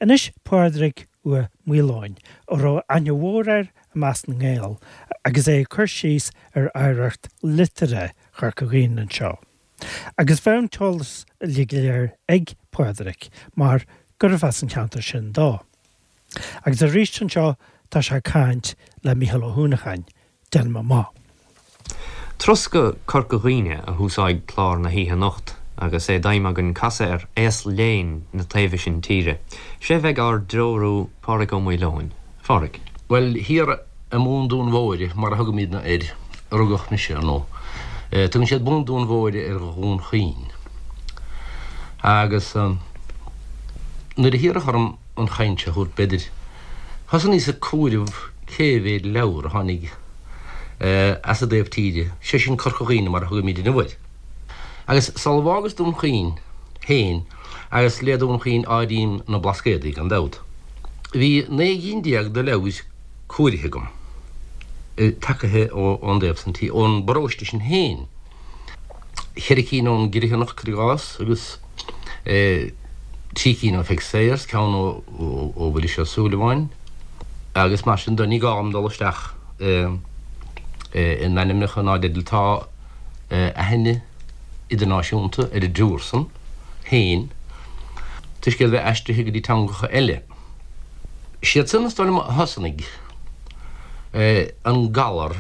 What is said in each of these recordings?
Anois Pádraig Ua Maoileoin, a raibh aithne mhór air i measc na nGael, agus é ag cur síos ar oidhreacht liteartha Chorca Dhuibhne anseo. Agus bheadh an t-eolas uilig go léir ag Pádraig mar gurbh as an cheantar sin dó. Agus arís anseo tá sé ag caint le Mícheál Ó hUanacháin, déanaim amach. Turas go Corca Dhuibhne a thúsóidh clár na hoíche anocht agus é d'aidhm againn casadh ar aos léinn na taobhe sin tíre. Sé bheidh ár dtreorú Pádraig Ó Maoileoin. A Phádraig. Bhuel, thiar i mBun Dúin Mhóire, mar a thugaimidne air, a rugadh mise, ar ndóigh. Tugann siad Bun Dúin Mhóire ar Dhún Chaoin. Agus nuair a hiarradh orm an chaint seo a thabhairt, b'fhéidir, thosnaíos ag comhaireamh cé mhéad leabhar a tháinig as an dtaobh tíre, sé sin Corca Dhuibhne mar a thugaimid inniu air. Agus sula bhfágas Dún Chaoin féin, agus le Dún Chaoin áirím na Blascaodaí gan dabht, bhí 19 gcinn de leabhair comhairithe agam, tagaithe ón dtaobh san tí, ón bparóiste sin féin, cheithre cinn ón gCriomhthanach, cuir i gcás, agus trí cinn ó Pheig Sayers, ceann ó Mhuiris Ó Súilleabháin, agus mar sin de. Ní gá dom dul isteach in ainmneacha ná i dteidil. Tá aithne idirnáisiúnta ar an dtriúr san féin toisc iad a bheith aistrithe go dtí teangacha eile. Siad san is dóigh liom a thosnaigh an galar,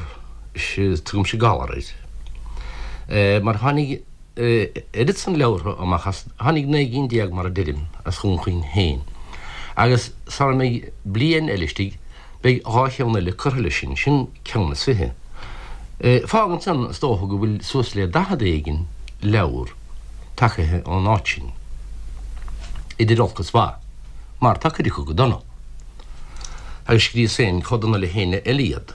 tugaimse galar air, mar tháinig oiread san leabhartha amach as, tháinig 19 gcinn mar a deirim, as Dhún Chaoin féin agus sara mbeidh bliain eile istigh beidh dhá cheann eile curtha leis sin, sin ceann is fiche. Fágann san, is dócha, go bhfuil suas le daichead éigin leabhar tagaithe ón áit sin, idir olc is mhaith, mar tá cuid acu go dona, agus scríos féin chomh dona le héinne eile iad.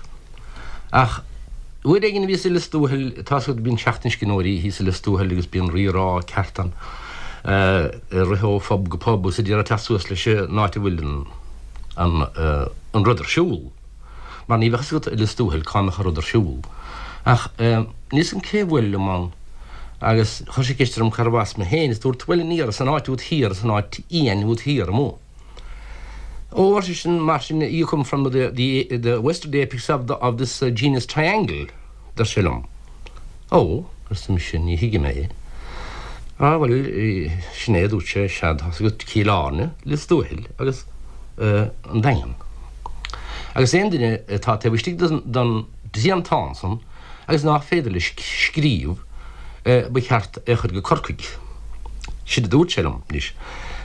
Ach uair éigin a bhíos i Lios Tuathail, tá's agat, bíonn Seachtain Scríbhneoirí thíos i Lios Tuathail agus bíonn rírá ceart ann, ag rith ó phub go pub agus ag iarraidh teacht suas leis an áit a bhfuil an an rud ar siúl. Mar ní bheadh fhios agat i Lios Tuathail cá mbeadh an rud ar siúl. Ach níl fhios agam cé a bhuail liom ann agus chuir sé ceist orm cárbh as mé féin is dúrt bhuel aniar as an áit úd thiar, as an áit fhiáin úd thiar amuigh. Ó, ar seisean, mar sin, you come from the, the, the western apex of, the, of this uh, genus triangle, deir sé liom. Ó, arsa mise, ní thuigim é. Á, bhuel, sin é, a dúirt sé, sea, tá's agat Cill Airne, Lios Tuathail agus uh, an Daingean. Agus aon duine atá taobh istigh den, den dtriantán san, agus nach féidir leis scríobh, ba cheart é a chur go Corcaigh. Sin a dúirt sé liom. Anois,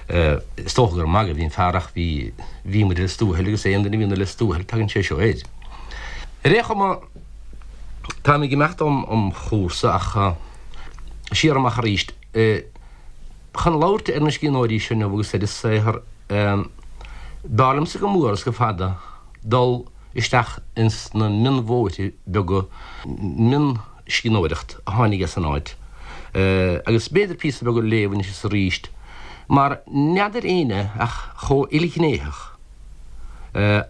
is dócha gur ag magadh a bhí an fear ach bhí, bhí muid i Lios Tuathail agus aon duine a bhíonn i Lios Tuathail tagann sé seo air. Ar aon chuma, táim ag imeacht óm chúrsa ach siar amach arís. Chun labhairt ar na scríbhneoirí seo inniu agus ar a saothar, b'fhearr liomsa go mór is go fada dul isteach ins na mionbhóithre beaga, mionscríbhneoireacht a tháinig as an áit, agus b'fhéidir píosa beag a léamh anois is arís, mar n'fheadar éinne ach chomh ilghnéitheach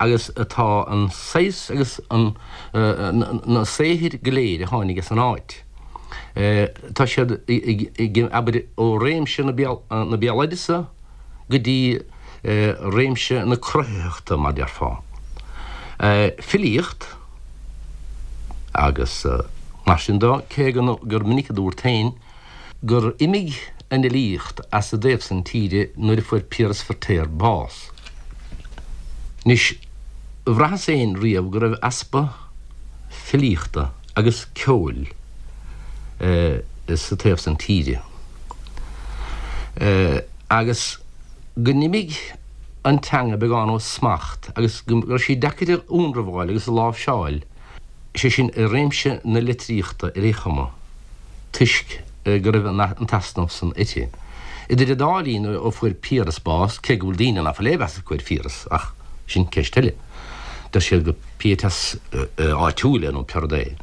agus atá an saghas agus an na saothair go léir a tháinig as an áit. Tá siad ag, abair, ó réimse na béaloideasa go dtí réimse na cruthaitheachta, mar déarfá. Filíocht agus mar sin de, cé gur minic a dúrt féin gur imigh an fhilíocht as an dtaobh san tíre nuair a fuair Piaras Feirtéar bás. Anois, bhraitheas féin riamh go raibh easpa filíochta agus ceoil sa taobh san tíre. Agus go n-imigh an teanga beagán ó smacht agus go raibh sí deacair a ionramháil agus a láimhseáil, sé sin i réimse na litríochta ar aon chuma, toisc go raibh an t-easnamh san uirthi. Idir an dá linn ó fuair Piaras bás, cé go bhfuil daoine ná fuil aon mheas acu ar Phiaras, ach sin ceist eile, deir siad gur pietas áitiúil é nó pé rud é.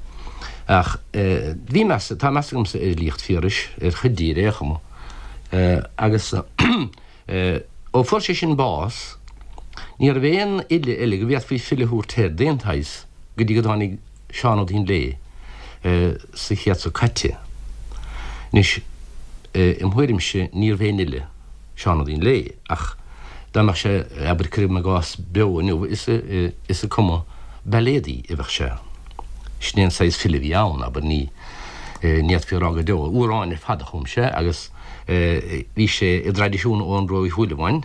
Ach bhí meas, tá meas agamsa ar fhilíocht Phiarais, ar chuid di ar aon chuma. Agus ó fuair sé sin bás, ní raibh aon fhile eile go bhféadfaí file a thabhairt air d'aon tsaghas go dtí go dtáinig Seán Ó Duinnshléibhe sa chéad seo caite. Anois, im thuairimse, níorbh aon fhile Seán Ó Duinnshléibhe, ach. Dá mbeadh sé, abair, cuirim i gcás, beo inniu, is ag cumadh bailéadaí a bheadh sé. Sin é an saghas file a bhí ann, abair, ní fhéadfaí a rá go deo. Amhráin ar fad a chum sé agus bhí sé i dtraidisiún Eoghan Rua Uí Shúilleabháin,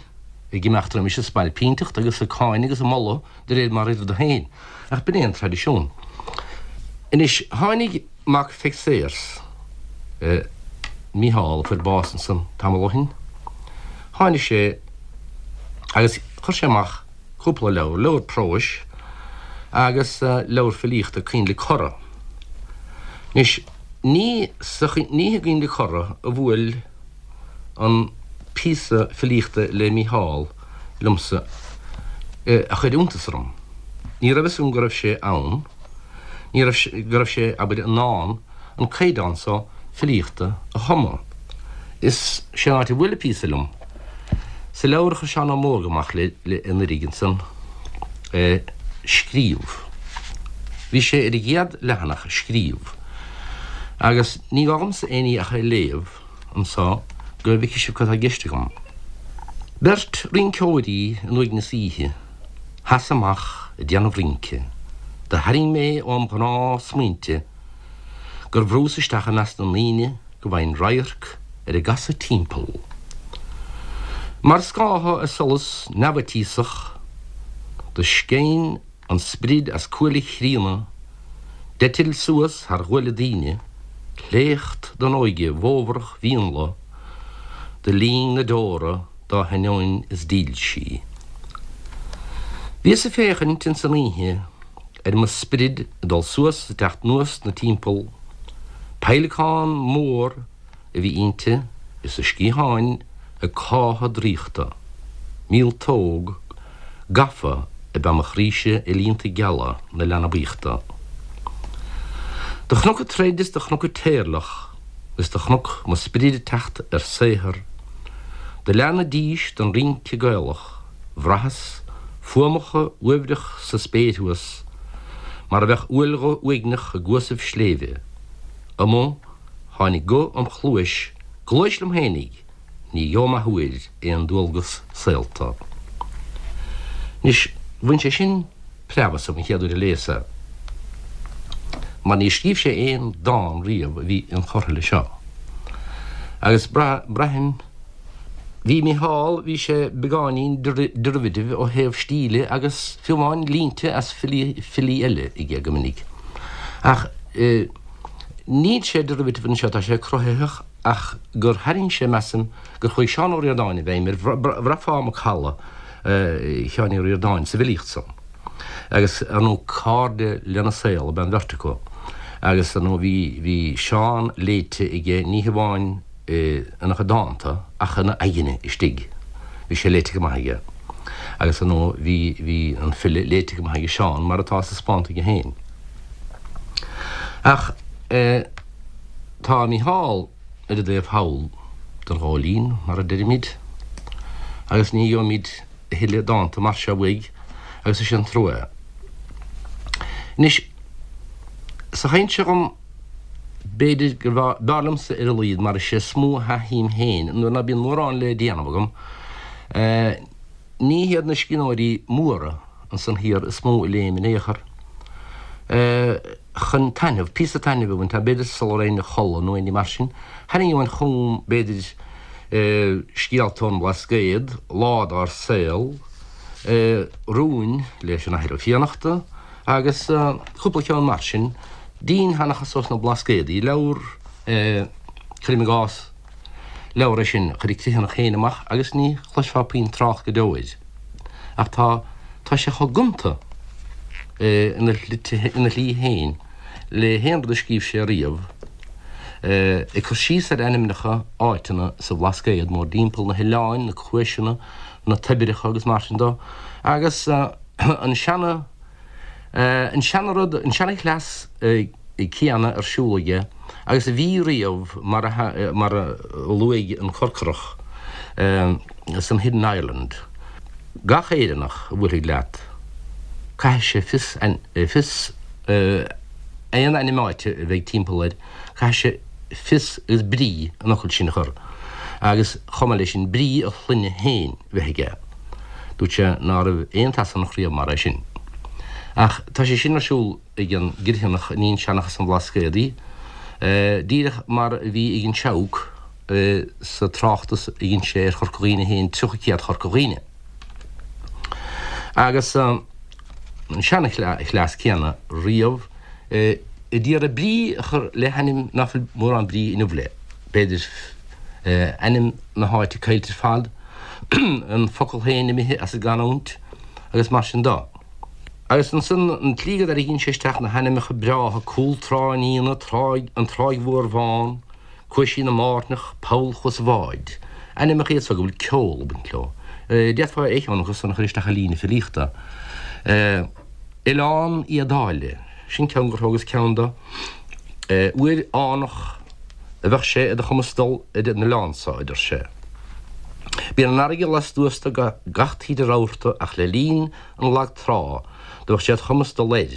ag imeacht roimis ag spailpínteacht agus ag cáineadh agus ag moladh de réir mar a oirfeadh dó féin. Ach b'in é an traidisiún. Anois, tháinig mac Pheig Sayers, Mícheál, a fuair bás ansan tamall ó shin, tháinig sé agus chuir sé amach cúpla leabhar, leabhar próis agus leabhar filíochta, Coinnle Corra. Anois, ní sa, ní i gCoinnle Corra a bhuail an píosa filíochta le Mícheál liomsa a chuir iontas orm. Ní raibh fhios agam go raibh sé ann, ní raibh, go raibh sé, abair, in ann an caighdeán so filíochta a chumadh. Is sé an áit a bhuail an píosa liom, sa leabhar a chuir Seán Ó Mórdha amach le, le anuraidh ansan, Scríobh. Bhí sé ar an gcéad leathanach, Scríobh. Agus ní gá dhomsa aon ní ach é a léamh anso go bhfeicfidh sibh cad tá i gceist agam. Beirt rinceoirí in uaigneas oíche, theas amach ag déanamh rince, do tharraing mé óm ghnáth-smaointe gur bhrús isteach i measc na ndaoine go bhfaighinn radharc ar a gcasadh timpeall. Mar scátha ar solas neamhfhaitíosach, do sceinn an sprid as cuaille chríonna, d'eitil suas thar ghuaille daoine, sléacht den óige bhfómharach mhíonla, do líon na deora dá hainneoin is dílsí. Bhíos ag féachaint ins an oíche ar mo sprid ag dul suas is ag teacht anuas 'na timpeall, peidhleacán mór a bhí inti is a sciatháin ag cáitheadh draíochta, míoltóg gafa ab ea mo chroíse i líonta geala na leanbaíochta. Do chonac ag troid is do chonac ag téirleach is do chonac mo sprid ag teacht ar saothar, do leath na dís don rince Gaelach, bhraitheas fuaimeacha uaibhreach sa spéir thuas mar a bheadh uaillghuth uaigneach i gcuasaibh sléibhe. Amuigh tháinig guth im chluais, gluais liom fhéinig, ní gheobhaim athuair aon dualgas saolta. Anois, bhain sé sin preab asam an chéad uair a léas é, mar níor scríobh sé aon dán riamh a bhí inchurtha leis seo. Agus braithim, bhí Mícheál, bhí sé beagáinín derivative ó thaobh stíle agus fiú amháin línte as filí eile aige go minic. Ach níl sé derivative anseo, tá sé cruthaitheach ach gur tharraing sé, measaim, gur chuaigh Seán Ó Ríordáin i bhfeidhm air, bhraithfeá macalla Sheáin Uí Ríordáin sa bhfilíocht san. Agus, ar ndóigh, cairde lena saol ab ea an bheirt acu. Agus, ar ndóigh, bhí, bhí Seán léite aige ní hamháin ina chuid dánta ach ina aigne istigh. Bhí sé léite go maith aige. Agus, ar ndóigh, bhí, bhí an file léite go maith aige Seán, mar atá taispeánta aige féin. Ach eh. Tá Mícheál ar an dtaobh thall den ghóilín, mar a deirimid, agus ní gheobhaimid a thuilleadh dánta mar seo uaidh, agus is é an trua é. Anois, sa chaint seo agam, b'fhéidir gur b'fhearr liomsa ar a laghad, mar is é is mó a thaithím féin nuair ná bíonn mórán le déanamh agam, Ní hiad na scríbhneoirí móra ansan thiar is mó a léim in aon chor chun taitneamh, píosa taitnimh a bhaint, b'fhéidir sula raghainn a chodladh nó aon ní mar sin. Tharraingeoinn chugam, b'fhéidir, scéalta ón mBlascaod, Lá dár Saol, Rúin leis an Athair Ó Fiannachta agus cúpla ceann mar sin, dinnseanchas ós na Blascaodaí, leabhar, cuirim i gcás, Leabhar é sin a chuir an Criomhthanach féin amach agus ní chloisfeá puinn trácht go deo air. Ach tá, tá sé chomh gonta ina ina shlí féin le haon rud a scríobh sé riamh, ag cur síos ar ainmneacha áiteanna sa Bhlascaod mórdtimpeall, na hoileáin, na cuaiseanna, na toibreacha agus mar sin dó, agus an seana, an seana rud, an seana chleas céanna ar siúl aige agus a bhí riamh mar a mar a luaigh an Corcorach san Hidden Ireland, gach Éireannach a bhuailfidh leat, caithfidh sé fios fios aon ainm áite a bheidh timpeall air, caithfidh sé fios agus brí an fhocail sin a chur agus chomh maith leis sin brí a shloinne féin a bheith aige. Dúirt sé ná raibh aon tSasanach riamh mar é sin. Ach tá sé sin ar siúl ag an gCriomhthanach a níonn seanchas an Bhlascaodaí, díreach mar a bhí ag an Seabhac sa tráchtas a dhein sé ar Chorca Dhuibhne féin, 30 Céad Chorca Dhuibhne. Agus an seanchleas céanna riamh a d'iarraidh brí a chur le hainm ná fuil mórán brí inniu léi, b'fhéidir, ainm na háite caillte ar fad, an focal féin imithe as an gcanúint agus mar sin de. Agus ansan an tslí go dtarraingíonn sé isteach na hainmneacha breátha, Cúl Trá an Fhíona, Tráigh, an Tráigh Mhór Bhán, Cuaisín na mBairneach, Poll Chuas an Bháid. Ainmneacha iad so go bhfuil ceol ag baint leo. D'fhéadfá aon cheann acu san a chur isteach i líne filíochta. Oileán Éadáile, sin ceann gur thógas ceann de. Uair fhánach a bheadh sé ar do chumas dul ar an oileán so, a deir sé. Bíonn an fharraige lastuas de gach taoide rabharta ach le linn an lag trá do bheadh sé id chumas dul air.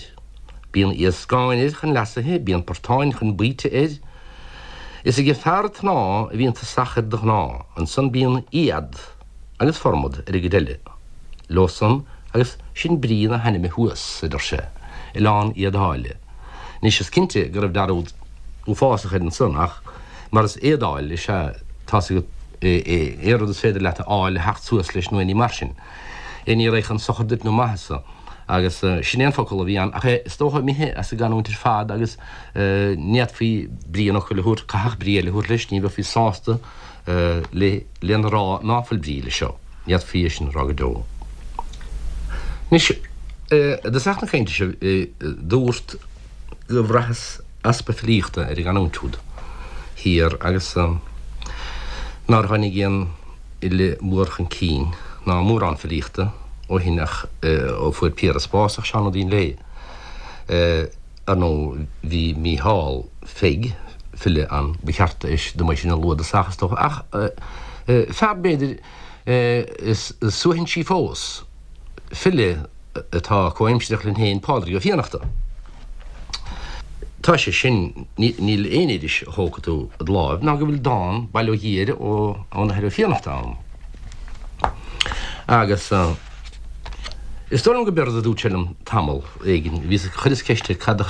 Bíonn iascáin air chun leasaithe, bíonn portáin chun baoite air. Is ag fear tnáth a bhíonn tosach air de ghnáth, ansan bíonn éad agus formad ar an gcuid eile leo san agus sin brí na hainme thuas, a deir sé, Oileán Éadáile. Anois is cinnte go raibh dearúd uafásach air ansan ach mar is éadáil is ea tá's agat aon rud is féidir leat a fháil a theacht suas leis nó aon ní mar sin. Aon ní a raghaidh chun sochair duit nó maitheasa. Agus sin é an focal a bhí ann, ach é is dócha imithe as an gcanúint ar fad agus ní fhéadfaí brí an fhocail a thabhairt, caithfeadh brí eile a thabhairt leis, ní bheifí sásta lena rá ná fuil brí leis seo. Ní fhéadfaí é sin a rá go deo. Anois, i dtosach na cainte seo, dúrt go bhraitheas easpa filíochta ar an gcanúint úd thiar agus nár tháinig aon fhile mór chun cinn ná mórán filíochta ó shin ach ó fuair Piaras bás ach Seán Ó Duinnshléibhe. Ar ndóigh bhí Mícheál Pheig, file ann, ba cheart dom é sin a lua i dtosach is dócha ach fear b'fhéidir is suaithinsí fós, file atá comhaimsireach linn féin, Pádraig Ó Fiannachta. Tá sé sin, níl aon iris a thógfaidh tú i do láimh ná go bhfuil dán, bail ó Dhia air, ón Athair Ó Fiannachta ann. Agus is dóigh liom go b'éard a dúirt sé liom tamall éigin, bhíos, chuireas ceist air cad,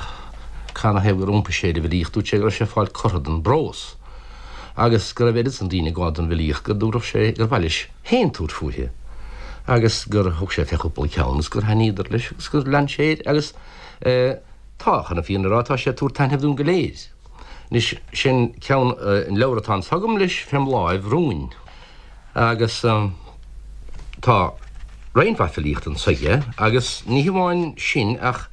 canathaobh gur iompaigh sé ar an bhfilíocht, dúirt sé go raibh sé ag fáil cortha den bprós agus go raibh oiread san daoine ag gabháil don bhfilíocht go dtabharfadh sé, gur mhaith leis féin tabhairt fúithi agus gur thug sé fé chúpla ceann agus gur thaitníodar leis agus gur lean sé air agus tá, chun an fhírinne a rá, tá sé ag tabhairt taitnimh dúinn go léir. Anois, sin ceann, an leabhar atá anso agam leis fém láimh, Rúin, agus tá roinnt mhaith filíochta anso aige agus ní hamháin sin ach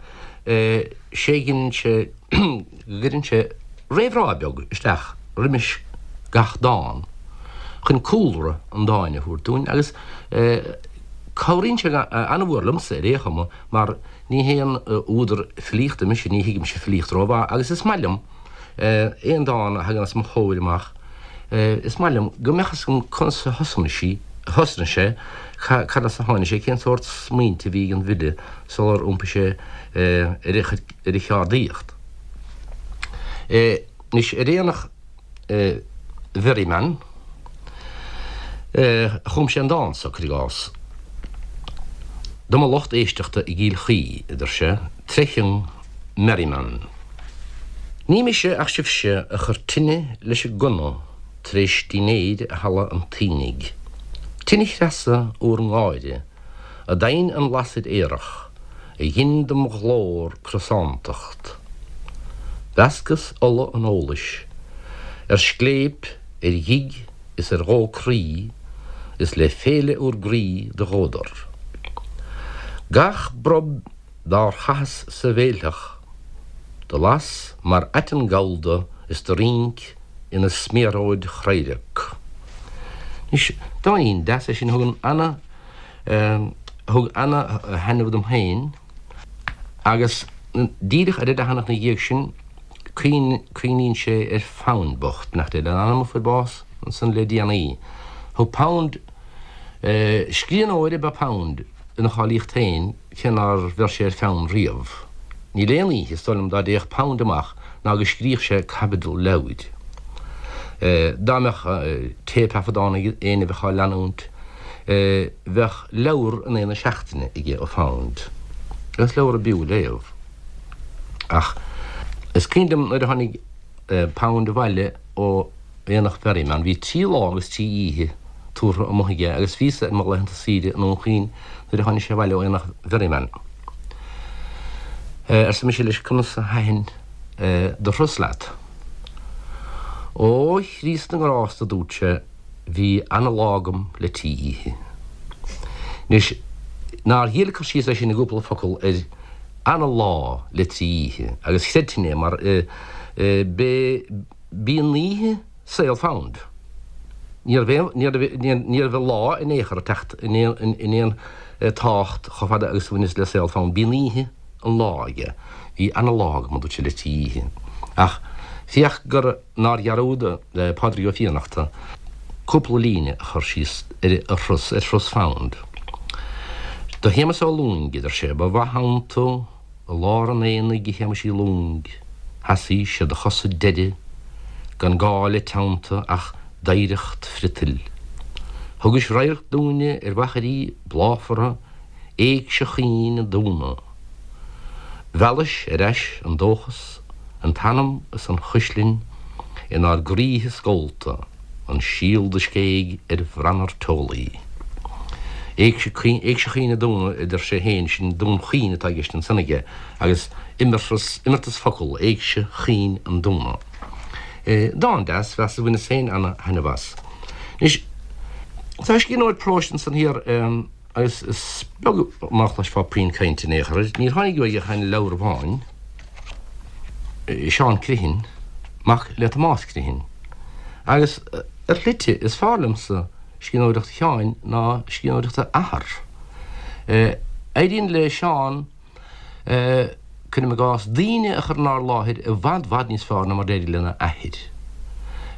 sé dhein sé, go gcuireann sé réamhrá beag isteach roimis gach dán chun cúlra an dáin a thabhairt dúinn agus cabhraíonn sé an-mhór liomsa ar aon chuma mar ní haon údar filíochta mise, ní thuigimse filíocht rómhaith agus is maith liom aon dán a thagann os mo chomhair amach, is maith liom go mbeadh fhios agam conas a thosnaigh sí, thosnaigh sé, cad as a tháinig sé, cén sórt smaointe a bhí ag an bhfile sular iompaigh sé ar a chuid ar a cheardaíocht. Anois, ar aonach Mherriman, chum sé an dán seo, cuir i gcás. Do mo lucht éisteachta i gCill Chaoi, a deir sé, tré chionn Merriman. Ní mise ach sibhse a chuir tine leis an gcona tar éis dinnéir i halla an tSiadhnaigh. Tine chreasa úr ngáire a d'adhain an lasair aerach, a ghin dom ghlór crosántacht. Mheascas ola an eolais ar scléip, ar ghig is ar dhó croí, is le féile úr gcroí do dhódar. Gach brob dár chaitheas sa bhéiltheach do las mar aiteann gallda is do rinc ina smiaróid chraorac. Anois, dáinín deas é sin a thugann ana, thug ana thaitneamh dom féin agus díreach ar an leathanach ina dhiaidh sin cuimhníonn sé ar Phound bocht, nach dté lena anam a fuair bás ansan le déanaí. Thug Pound, scríbhneoir ab ea Pound ina cháilíocht féin cé nár bheir sé ar pheann riamh. Níl aon oíche, is dóigh liom, dá dtéadh Pound amach ná go scríodh sé caibidil leabhair. Dá mbeadh téipthaifeadán ag éinne a bheadh á leanúint. Bheadh leabhar in aghaidh na seachtaine aige ó Found, agus leabhar a b'fhiú a léamh. Ach is cuimhin liom nuair a tháinig Pound abhaile ó Aonach Mherriman, bhí trí lá agus trí oíche tabhartha amuigh aige agus bhíos-sa ar mo laethanta saoire i nDún Chaoin nuair a tháinig sé abhaile ó Aonach Mherriman. Arsa mise leis, conas a thaitin do thuras leat? Ó, a Chríost na nGrást, a dúirt sé, bhí ana-lá agam le trí oíche. Anois, nár ghile cur síos é sin i gcúpla focal ar ana-lá le trí oíche, agus chreidfinn é mar b'é b'í an oíche saol Found. Ní raibh ní raibh lá in aon chor ag teacht in aon tábhacht chomh fada agus a bhaineas le saol Found. B'í an oíche an lá aige. Bhí ana-lá agam, a dúirt sé, le trí oíche. Ach féach gur nár dhearúd Pádraig Ó Fiannachta cúpla líne a chur síos ar a thuras, ar thuras Found. Do Shéamus Ó Lúing, a deir sé, ba mhaith ann tú i lár an aonaigh a Shéamuis Uí Lúing, sheasaís ar do chosa deiridh gan gá le teannta ach d'oidhreacht friotail. Thugais radharc dúinne ar mhachairí bláfara Éigse Chaoin an Dúna. Mheallais ar ais an dóchas, an t-anam is an chuislinn inár gcroíthe scólta, an síol do scéigh ar bhranar teolaí. Éigse Chaoin an Dúna, a deir sé féin, sin Dún Chaoin atá i gceist ansan aige, agus imeartas, imeartas focal, Éigse Chaoin an Dúna. Dán deas, mheas, bhaineas féin ana-thaitneamh as. Anois, tá scríbhneoir próis ansan thiar, Agus is beag mar a chloisfeá puinn cainte in aon chor air. Níor tháinig uaidh ach aon leabhar amháin, Seán Criomhthain, mac le Tomás Criomhthain. Agus ar shlite, is fearr liomsa scríbhneoireacht Sheáin ná scríbhneoireacht a athar. Éiríonn le Seán. cuirim i gcás, daoine a chur inár láthair i bhfad bhfad níos fearr ná mar d'éirigh lena athair.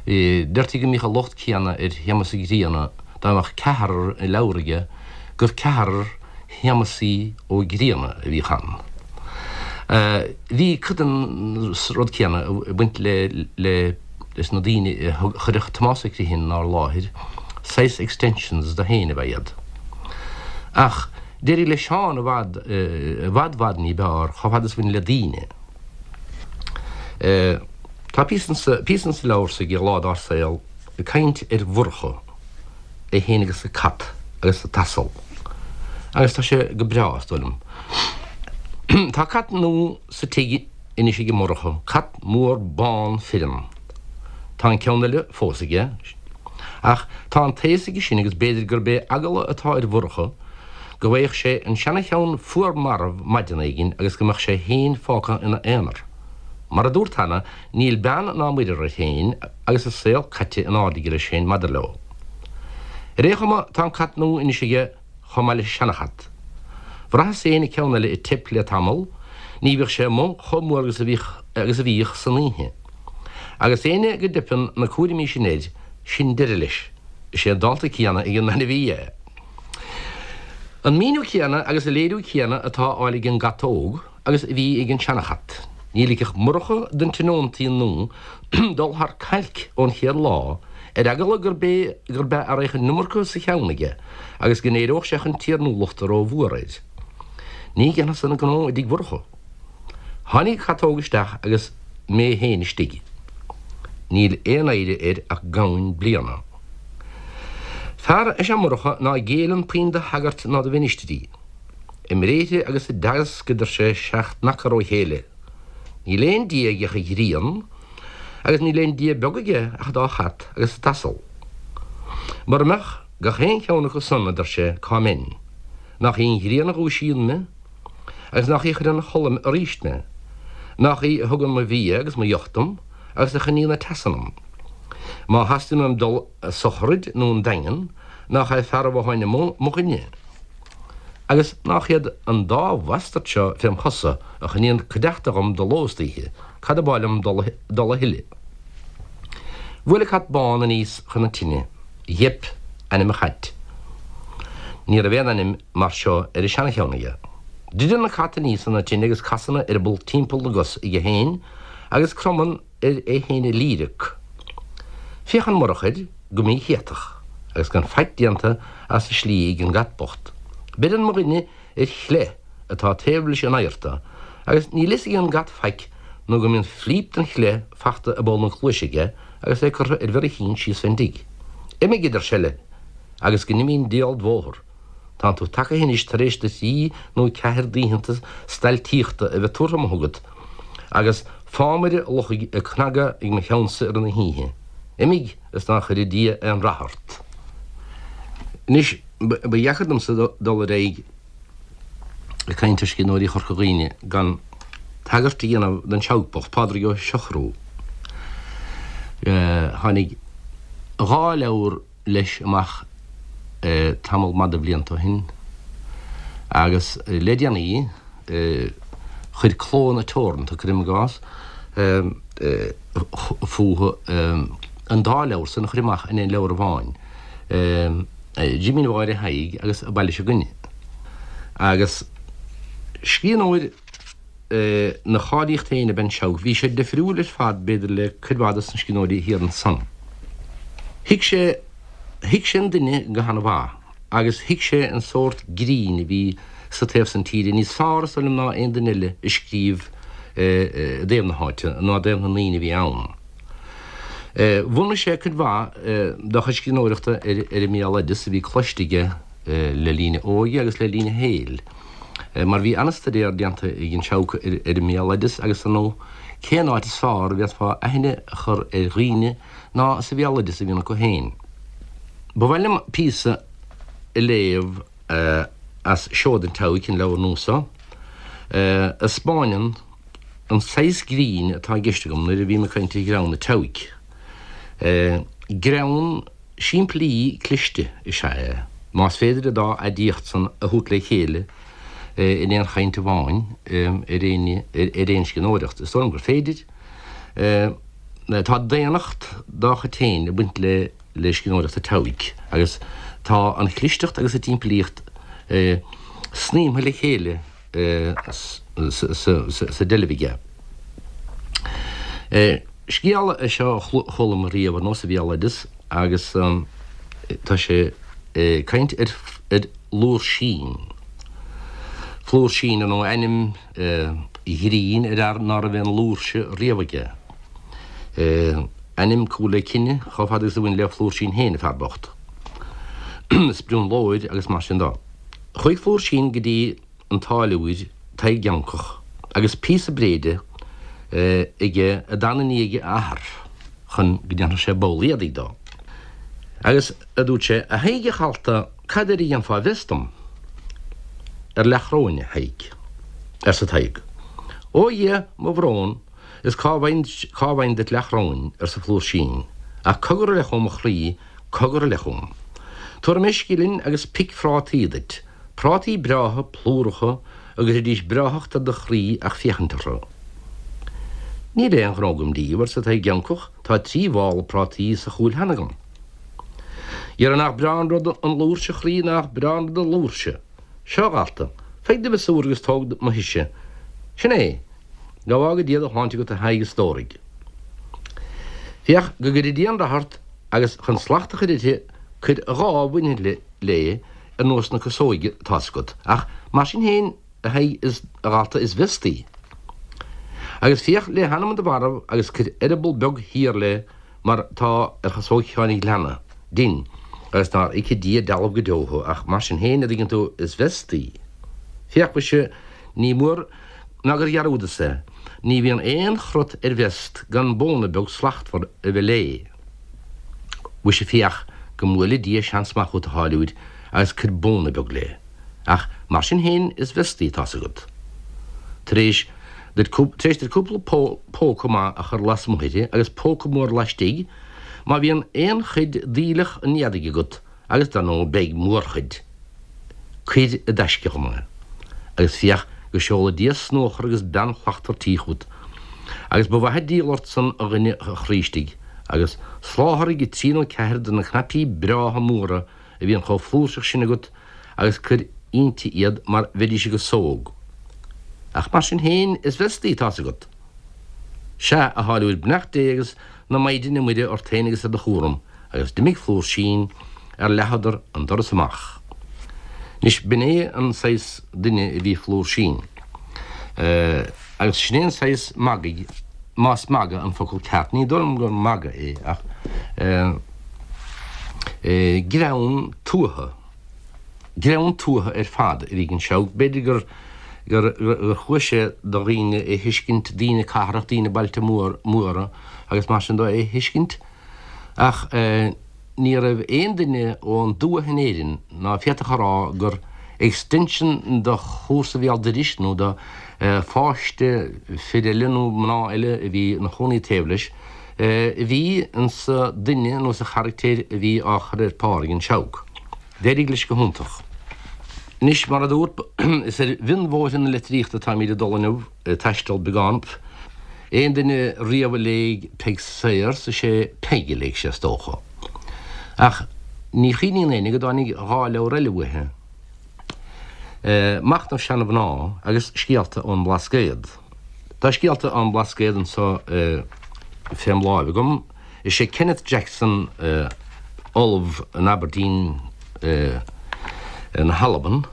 Deirtí go mbíodh an locht céanna ar Shéamus Ó Grianna, dá mbeadh ceathrar i leabhar aige, gur ceathrar Shéamasaí Ó Grianna a bhíodh ann. Bhí cuid den rud céanna ag baint le leis na daoine a chuireadh Tomás Ó Criomhthain inár láthair, saghas extensions de féin ab ea iad. Ach. D'éirigh le Seán i bhfad, i bhfad bhfad ní b'fhearr, chomh fada is a bhain le daoine. Tá píosa insa, píosa insa leabhar s'aige, Lá Dár Saol, ag caint ar Mhurchadh, é féin agus a cat agus an t-asal. Agus tá sé go breá, is dóigh liom. Tá cat nua sa tigh anois ag Murchadh, cat mór bán fireann. Tá an ceann eile fós aige. Ach tá an taos aige sin agus b'fhéidir gurb é eagla atá ar Mhurchadh go bhfaigheadh sé an seana-cheann fuar marbh maidin éigin agus go mbeadh sé féin fágtha ina aonar. Mar a dúrt cheana, níl beann ná muirear air féin agus a saol caite in airde aige leis féin maidir leo. Ar aon chuma, tá an cat nua anois aige chomh maith leis an seana-chat. Bhraitheas féin an ceann eile ag teip le tamall, ní bhíodh sé amuigh chomh mór agus a bhíodh agus a bhíodh san oíche. Agus éinne go dteipeann na cúraimí sin air, sin deireadh leis. Is é an dálta céanna ag an ainmhí é. An míniú céanna agus an léiriú céanna atá á fháil ag an gcat óg agus a bhí ag an seana-chat. Ní ligfeadh Murchadh don tionóntaí nua dul thar cailc ón chéad lá, ar eagla gurb é gurb ea a raghadh an iomarca sa cheann aige agus go n-éireodh sé chun tiarnúlachta ró-mhór air. Ní dhéanfadh san a ghnó i dtigh Mhurchadh. Tháinig an cat óg isteach agus mé féin istigh. Níl aon oidhre air ach gamhain bliana. Fear is ea Murchadh ná géilleann puinn do shagairt ná do mhinistrí. I mbréithre agus i dteagasc a deir sé 7 n-acar ó chéile. Níl aon Dia aige ach an ghrian, agus níl aon Dia beag aige ach an dá chat agus an t-asal. Mura mbeadh gach aon cheann acu san, a deir sé, cá mbeinn? Nach í an ghrian a dhúisíonn mé? Agus nach í a chuireann a chodladh aríst mé? Nach í a thugann mo bhia agus mo dheoch dom, agus a choinníonn an teas ionam? Má theastaíonn uaim dul a sochraid nó 'on Daingean, nach é fear an bhotháin amuigh mo dhuine? Agus nach iad an dá bhastard seo fém chosa a choinníonn cuideachta dhom de ló is d'oíche, cad ab áil liom dul a thuilleadh? Bhuail an cat bán aníos chun na tine. Gheip ainm an chait. Ní raibh aon ainm mar seo ar an seana-cheann aige. Druideann an cat aníos chun na tine agus casann a eireaball timpeall na gcos aige féin agus cromann air é féin a líreac. Féachann Murchadh air go míchéatach. agus gan faic déanta as an slí ag an gcat bocht. Beireann mo dhuine ar chleith atá taobh leis an adharta agus níl fhios ag an gcat faic nó go mbíonn flíp den chleith fachta i bpoll na cluaise aige agus é curtha ar mhéar a chinn síos fén dtigh. Imigh, a deir seile, agus go n-imí an diabhal d' bhóthar. Tánn tú tagaithe anois tar éis do thrí nó ceathair d'oícheanta stailtíochta a bheith tabhartha amuigh agat agus fámaire luchaigh ag cnagadh ag mo cheannsa i rith na hoíche. Imigh is ná cuire Dia aon rath ort. Anois, ba dheacair domsa dul ar aghaidh ag caint ar scríbhneoirí Chorca Dhuibhne gan tagairt a dhéanamh don Seabhac bocht, Pádraig Ó Siochrú. Tháinig dhá leabhar leis amach tamall maith de bhlianta ó shin agus le déanaí chuir Clódhanna Teoranta, cuirim i gcás, fúthu an dá leabhar san a chur amach in aon leabhar amháin, Jimín Mháire Thaidhg agus Baile Seo 'Gainne. Agus scríbhneoir ina cháilíocht féin ab ea an Seabhac. Bhí sé difriúil ar fad, b'fhéidir, le cuid mhaith dos na scríbhneoirí thiar ansan. Thuig sé, thuig sé an duine go han-mhaith agus thuig sé an sórt grinn a bhí sa taobh san tíre níos fearr, is dóigh liom, ná aon duine eile a scríobh i dtaobh na háite ná i dtaobh na ndaoine a bhí ann. Bhunaigh sé cuid mhaith dá chuid scríbhneoireachta ar an mbéaloideas a bhí cloiste aige le linn a óige agus le linn a shaoil. Mar bhí an-staidéar déanta ag an Seabhac ar an mbéaloideas agus ar ndóigh cén áit is fearr a bhféadfá aithne a chur ar dhaoine ná sa bhéaloideas a bhíonn acu féin. Ba mhaith liom píosa a léamh as Seoda an tSeabhaic, an leabhar nua seo, a 'spáineann an saghas grinn atá i gceist agam nuair a bhím ag caint ar ghreann an tSeabhaic. Greann. Simplí cliste is ea é, más féidir an dá aidiacht san a thabhairt le chéile in aon chaint amháin ar aon scríbhneoireacht. Is dóigh liom gur féidir. Tá daonnacht dá chuid féin ag baint le scríbhneoireacht an tSeabhaic agus tá an chlisteacht agus an tsimplíocht snaidhmthe le chéile sa deilbh aige. Scéal é seo a chuala mé riamh ar ndóigh sa bhéaloideas agus tá sé ag caint ar Fhlúirsín. Flúirsín ar ndóigh ainm grinn ar fhear ná raibh aon fhlúirse riamh aige. Ainm cumha le cine chomh fada agus a bhain le Flúirsín féin, an fear bocht. Sprionlóir agus mar sin dó. Chuaigh Flúirsín go dtí an táilliúir Tadhg Eancach agus píosa bréide aige a d'fhan i ndiaidh a athar chun go ndéanfadh sé ball éadaigh dó. Agus, a dúirt sé, a Thaidhg a dhalta, cad air a dhéanfá vest dom? Ar leathchróin, a Thaidhg, arsa Tadhg. Ó a Dhia, mo bhrón, is cá bhfaighinn duit leathchróin, arsa Flúirsín, ach cogar a leith chugam a chroí, Cogar a leith chugam. Tabharfaidh mé scilling agus pic phrátaí duit, prátaí breátha plúracha a gcuirfidís breáthacht ar do chroí ach féachaint orthu. Níl aon ghnó agam díobh, arsa Tadhg Eancach, tá trí mhála prátaí sa chúil cheana agam. Dhera nach breá an rud an fhlúirse a chroí, nach breá an rud an fhlúirse. Seo, a dhalta, faigh do mhiosúr agus tóg mo thuise. Sin é. Go bhfága Dia do shláinte agat a Thaidhg a stóraigh. Féach go gcuire Dia an rath ort agus chun slacht a chur uirthi cuir dhá mhuinchille léi ar nós na casóige atá's agat, ach mar sin féin a Thaidhg is a dhalta is vest í. Agus féach le hanam do mharbh agus cuir eireaball beag thiar léi mar tá ar chasóg Sheáin an Ghleanna dinn agus nár íce Dia dealbh go deo thú ach mar sin féin a dtuigeann tú is vest í. Féach mhuise ní mór ná gur dhearúdas é, ní bhíonn aon chrot ar vest gan bóna beag slachtmhar a bheith léi. Mhuise féach go mbuaile Dia seans maith chút a tháilliúir agus cuir bóna beag léi. Ach mar sin féin is vest í tá's agat. Tar éis duit tar éis duit cúpla póca maith a chur lasmuigh uirthi agus póca mór laistigh, má bhíonn aon chuid d'aoileach an éadaigh agat, agus dar ndóigh beidh mórchuid, Cuir i dtaisce dhom é, agus féach go seola Dia snuachar agus bean shlachtmhar tí chút. Agus ba mhaith an díol ort san, a dhuine a chroí istigh, agus soláthraigh trí nó ceathair de na cnaipí breátha móra a bhíonn chomh flúirseach sin agat agus cuir inti iad mar bheidís i gcasóg. Ach mar sin féin, is vest í, tá's agat. Sea, a tháilliúir, beannacht Dé agus na Maighdine Muire ort féin agus ar do chúram. Agus d'imigh Flúirsín. Ar leathadar an doras amach. Anois, b'in é an saghas duine a bhí Flúirsín. Agus sin é an saghas magaidh, más magadh an focal ceart, ní dóigh liom gur magadh é, ach greann tuaithe, greann tuaithe ar fad a bhí ag an Seabhac. B'fhéidir gur gur chuaigh sé do dhaoine é thuiscint, daoine cathrach, daoine bailte móra agus mar sin dó é thuiscint, ach ní raibh aon duine ón dtuath in Éirinn ná féadfadh a rá gur extension de chomharsa Bhéal Dorais nó de pháiste fir eile nó mná eile a bhí ina chónaí taobh leis a bhí insa duine nó sa charactéir a bhí á chur ar pár ag an Seabhac. D'éirigh leis go hiontach. Anois, mar a dúrt, is ar mhionbhóithre na litríochta atáimid ag dul inniu, ag taisteal beagán. Aon duine riamh a léigh Peig Sayers, is é Peig a léigh sé, is dócha. Ach ní chuimhníonn éinne go dtáinig dha leabhar eile uaithi, Machnamh Seana-Mhná agus Scéalta ón mBlascaod. Tá Scéalta ón mBlascaod anso fém láimh agam. Is é Kenneth Jackson, ollamh in Aberdeen na hAlban,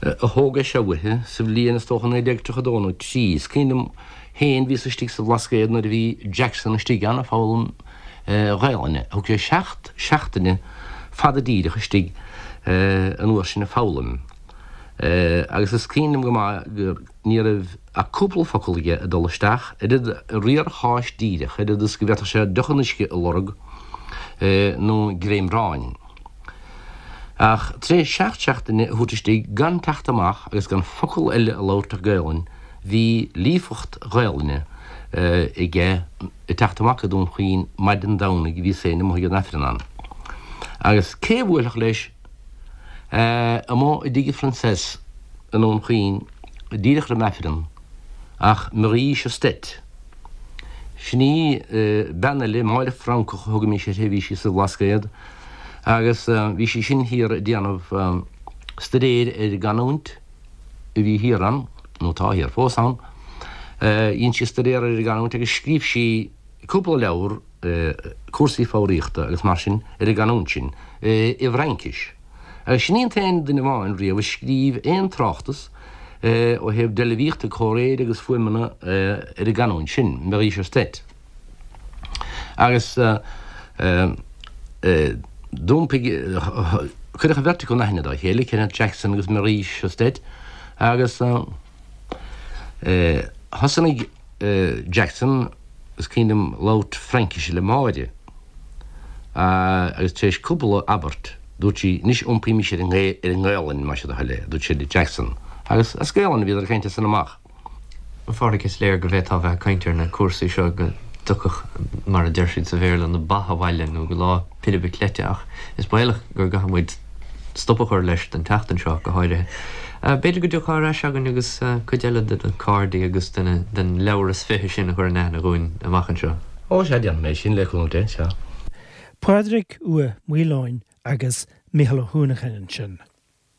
a thóg é seo uaithi sa bhliain, is dócha, 1932 nó 3. Is cuimhin liom féin, bhíos istigh sa Bhlascaod nuair a bhí Jackson istigh ann ag foghlaim Ghaelainne. Thug sé seacht seachtaine fada díreach istigh an uair sin ag foghlaim. Agus is cuimhin liom go maith gur ní raibh ach cúpla focal aige ag dul isteach, oiread riar cháis díreach, oiread is go bhféadfadh sé deoch an uisce a lorg nó greim aráin. Ach tar éis seacht seachtaine a thabhairt istigh gan teacht amach agus gan focal eile a labhairt ach Gaelainn, bhí líofacht Ghaelainne aige ag teacht amach go Dún Chaoin maidin Domhnaigh bhíos féin amuigh ag an Aifreann ann. Agus cé a bhuailfeadh leis amuigh i dtigh Phroinsias i nDún Chaoin díreach roim Aifreann ach Marie Chastet. Sin í bean eile, Máire Francach a thugaimis uirthi, bhí sí sa Bhlascaod agus bhí sí sin thiar ag déanamh staidéir ar an gcanúint a bhí thiar ann, nó atá thiar fós ann. Dhein sí staidéar ar an gcanúint agus scríobh sí cúpla leabhar, cúrsaí foghraíochta agus mar sin ar an gcanúint sin i bhFraincis. Agus sin í an t-aon duine amháin riamh a scríobh aon tráchtas ó thaobh deilbhíochta, comhréire agus fuaimeanna ar an gcanúint sin, Marie Chastet. Agus d'iompaigh, cuireadh an bheirt acu in aithne dá chéile, Kenneth Jackson agus Marie Chastet, agus thosnaigh Jackson, is cuimhin liom labhairt Fraincise le Máire agus tar éis cúpla abairt dúirt sí anois iompaímis ar an nGaelainn más é do thoil é, a dúirt sí le Jackson. Agus as Gaelainn a bhíodar ag caint as san amach. A Phádraig, is léir go bhféadfá bheith ag caint ar na cúrsaí seo go dtiocfadh, mar a deir siad sa Bhéarla, na ba abhaile nó go lá pilib cleite ach is baolach go gcaithfidh muid stop a chur leis don tseachtain seo go háirithe. B'fhéidir go dtiocfá ar ais againn agus cuid eile de na cairde agus den leabhar is fiche sin a chur in aithne dhúinn amach anseo. Ó sea, déanfaidh mé sin, le cúnamh Dé, sea. Pádraig Ua Maoileoin agus Mícheál Ó hUanacháin ansin.